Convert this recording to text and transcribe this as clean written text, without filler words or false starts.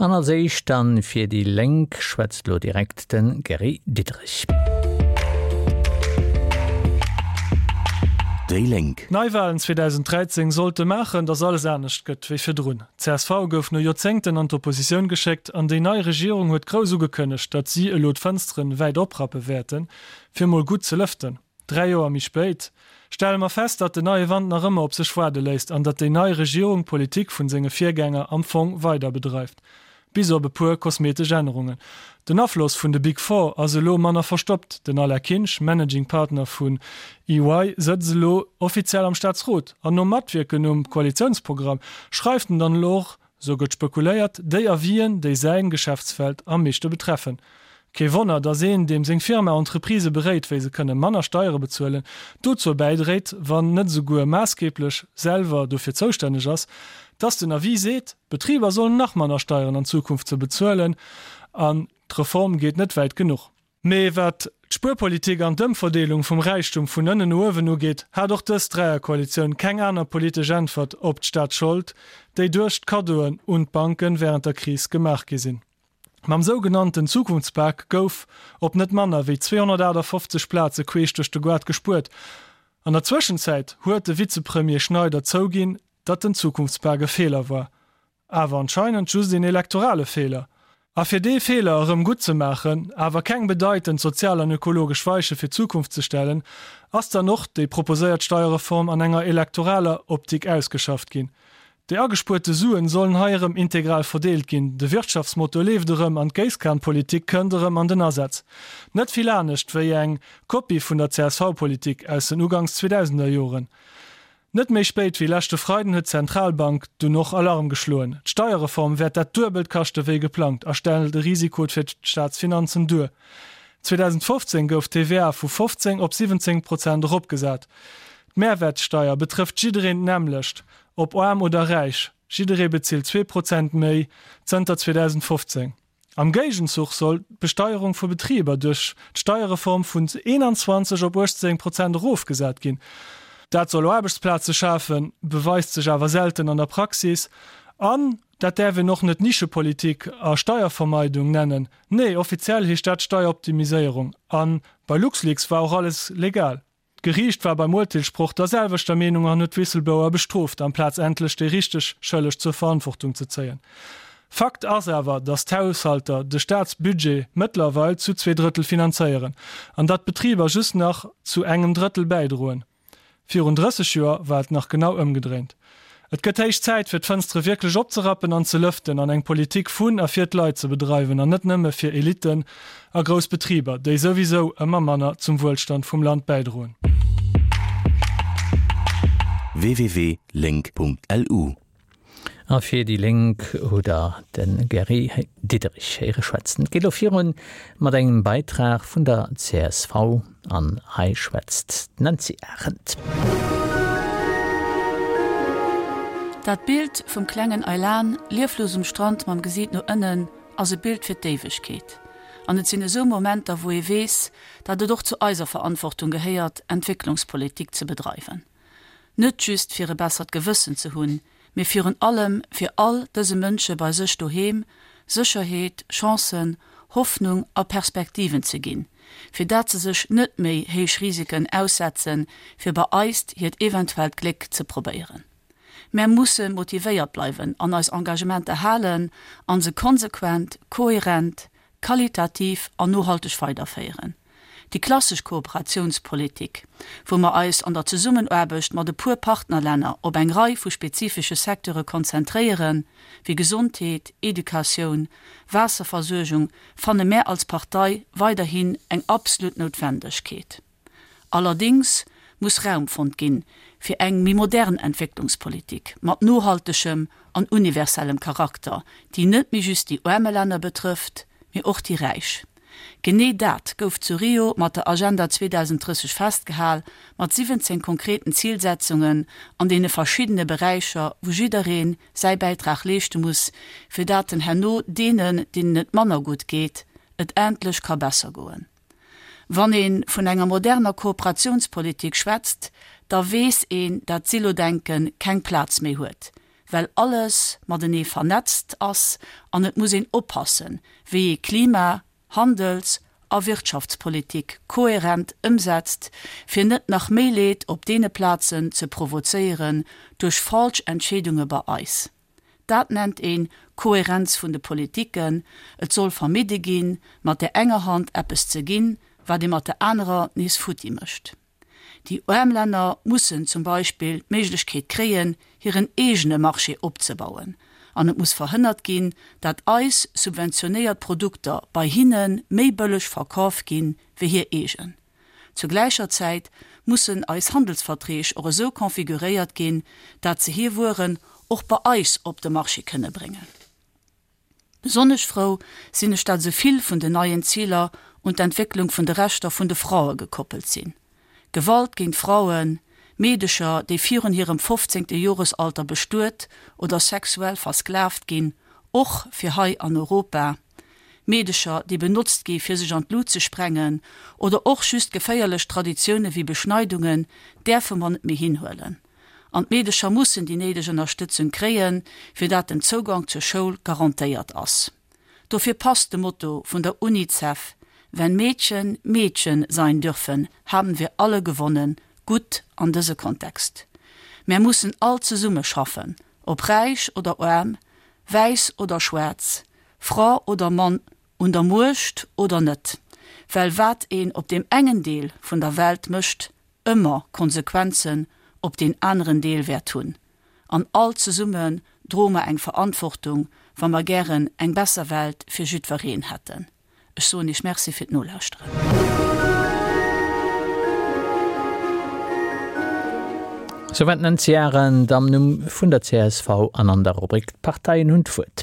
An als éischt dann fir déi Lénk schwätzt elo direkt de Gary Diderich. Déi Lénk. D'Neiwalen 2013 sollte maachen, datt alles anescht gëtt wéi virdrun. D'CSV gouf no Joerzéngten an d'Oppositioun geschéckt an déi nei Regierung huet grouss ugekënnegt, datt si elo d'Fënsteren wäit oprappe wäerten, fir mol gutt ze lëften. 3 Joer méi spéit stelle mer fest, datt den neie Wand nach ëmmer op sech waarde léisst an datt déi nei Regierung d'Politik vun senge Virgänger am Fong weider bedreift, bis op e puer kosmetesch Ännerungen. Den Afloss vun de Big Four ass elo manner verstoppt, den Alain Kinsch, Managing Partner vun EY, sëtzt elo offiziell am Staatsrot an nom Matwierken um Koalitiounsprogramm schreift en dann elo och Sou gëtt spekuléiert, déi Avisen, déi säin Geschäftsfeld am meeschte betreffen. Kee Wonner, dass een, deem seng Firma Entreprisë beréit, wéi se kënne manner Steiere bezuelen, dozou bäidréit, wann net esouguer maassgeeblech selwer dofir zoustänneg ass, dass den Avis seet, d'Betriber sollen nach manner Steieren an Zukunft ze bezuelen an d'Reform geet net wäit genuch. Mee wat d'Spuerpolitik an d'Ëmverdeelung vum Räichtum vun ënnen no uewen ugeet, hat och dës Dräierkoalitioun keng aner politesch Äntwert op d'Staatsschold, déi duerch d'Kaddoen un d'Banke wärend der Kris gemaach gi sinn. Mam sougenannten Zukunftspak gouf op net manner wéi 258 Plaze queesch duerch de Goart gespuert. An der Zwëschenzäit huet de Vizepremier Schneider zouginn, datt den Zukunftspak e Feeler war. Awer anscheinend just een elektorale Feeler. A fir dee Feeler erëm gutt ze maachen, awer keng bedeitend sozial an ökologesch Weiche fir d'Zukunft ze stellen, ass dann och déi proposéiert Steierreform an enger elektoraler Optik ausgeschafft ginn. Déi agespuerte Suen sollen hei erëm integral verdeelt ginn, de Wirtschaftsmotor leeft erëm an d'Géisskanpolitik kënnt erëm an den Asaz. Net vill anescht wéi eng Kopie vun der CSV-Politik aus den ugangs 2000er Joren. Net méi spéit wéi leschte Freiden huet d'Zentralbank dunn och Alarm geschloen. D'Steierreform wäert dat Duebelt kaschte wéi geplangt a stellt e Risiko fir d'Staatsfinanzen duer. 2015 gouf d'TVA vu 15 op 17 Prozent eropgesat. D'Mehrwertsteier betrëfft jiddereen d'nämmlecht, ob aarm oder räich, jidderee bezilt 2 Prozent méi zënter 2015. Am Géigenzuch soll d'Besteierung vu Betriber duerch d'Steierreform vun 21 op 18 Prozent erofgesat ginn. Dat soll Aarbechtsplaze schafen, beweist sech awer selten an der Praxis. An dat däerf een och net Nischepolitik a Steiervermeidung nennen. Nee, offiziell heescht dat Steieroptimiséierung. A bei LuxLeaks war och alles legal. D'Geriicht war beim Urteelssproch der selwechter Meenung an huet d'Whistleblower bestrooft, amplaz endlech déi richteg Schëlleg zur Verantwortung ze zéien. Fakt ass awer, datt d'Haushalter de Staatsbudget mëttlerweil zu zweedrëttel finanzéieren an datt d'Betriber just nach zu engem Drëttel bäidroen. Virun 30 Joer war et nach genau ëmgedréint. Et gëtt héich Zäit, fir d'Fënstere wierklech opzerappen an ze lëften an eng Politik vun a fir d'Leit ze bedreiwen an net nëmme fir Elitten a grouss Betriber, déi souwisou ëmmer manner zum Wuelstand vum Land bäidroen. www.link.lu. A fir déi Lénk hutt Der de Gary Diderich héiere schwätzen. Et geet elo virun mat engem Beitrag vun der csv an hei schwätzt d'Nancy Arendt. Dat Bild vum klengen Aylan, lieflos um Strand mam Gesiit no ënnen, ass e Bild fir d'Éiwegkeet. An et sinn esou Momenter, wou ee weess, datt et och zu eiser Verantwortung gehéiert, Entwécklungspolitik ze bedreiwen. Net just fir e bessert Gewëssen ze hunn, mee virun allem fir all dëse Mënsche bei sech doheem Sécherheet, Chancen, Hoffnung a Perspektiven ze ginn, fir dat se sech net méi héich Risiken aussetzen, fir bei eist hiert eventuellt Gléck ze probéieren. Mär musse motivéiert bleiwen an eis Engagementer halen an se konsequent, kohärent, qualitativ an nohalteg weiderféieren. Déi klassesch Kooperatiounspolitik, wou mer eis an der Zesummenaarbecht mat e puer Partnerlänner op eng Rei vu spezifesche Secteure konzentréieren, wéi Gesondheet, Educatioun, Waasserversuergung, fanne mär als Partei weiderhin eng absolut Noutwendegkeet. Allerdéngs muss Raum fonnt ginn fir eng méi modern Entwécklungspolitik mat nohaltegem an universellem Charakter, déi net méi just déi aarme Länner betrëfft, mee och déi räich. Genee dat gouf zu Rio mat der Agenda 2030 festgehal, mat 17 konkreten Zilsetzungen an deene verschiddene Beräicher, wou jidderee säi Bäitrag leeschte muss, fir dat en herno deenen, deenen et manner gutt geet, et endlech ka besser goen. Wann ee vun enger moderner Kooperatiounspolitik schwätzt, da weess een, dat Silodenke keng Plaz méi huet. Well alles matenee vernetzt ass an et muss een oppassen, wéi ee Klima-, Handels a Wirtschaftspolitik kohärent ëmsetzt, fir net nach méi Leed op deene Plazen ze provozéieren duerch falsch Entscheedunge bei eis. Dat nennt een Kohärenz vun de Politiken. Et soll vermidde ginn, mat där enger Hand eppes ze ginn, wat ee mat der anerer nees futti mécht. Déi aarm Länner mussen zum Beispill d'Méiglechkeet kréien, hiren eegene Marché opzebauen. An et muss verhënnert ginn, dat eis subventionéiert Produkter bei hinne méi bëlleg verkaf ginn, wéi hir eegen. Zur gläicher Zäit mussen eis Handelsverträg och esou configuréiert ginn, dat se hir Wueren och bei eis op de Marché kënne bréngen. Besonnesch frou sinn ech, dat esou vill vun den neien Ziler un d'Entwécklung vun de Rechter vun de Fraue gekoppelt sinn. Gewalt géint Frauen, Meedecher, déi virun hirem fofzéngte Joresalter bestuet oder sexuell versklavt ginn, och fir hei an Europa, Meedecher, déi benotzt gi fir sech an d'Lut ze sprengen, oder och just geféierlech Traditioune wéi Beschneidungen, däerfe mer net méi hinhuelen. An d'Meedecher mussen déi néideg Ënnerstëtzung kréien, fir dat den Zougank zur Schoul garantéiert ass. Dofir passt de Motto vun der Unicef Wenn Mädchen Mädchen sein dürfen, haben wir alle gewonnen gutt an dëse Kontext. Mär mussen all zesumme schaffen, ob räich oder aarm, wäiss oder schwaarz, Fra oder Mann, un der Muecht oder net, well wat een op deem engen Deel vun der Welt mécht, ëmmer Konsequenzen op deen aneren Deel wäert hunn. An all zesumme droe mer eng Verantwortung, wa mer gären eng besser Welt fir jiddwereen hätten. Ech soen Iech Merci fir d'Nolauschteren. Souwäit d'Nancy Arendt am Numm vun der csv an an der Rubrik D'Parteien hunn d'Wuert.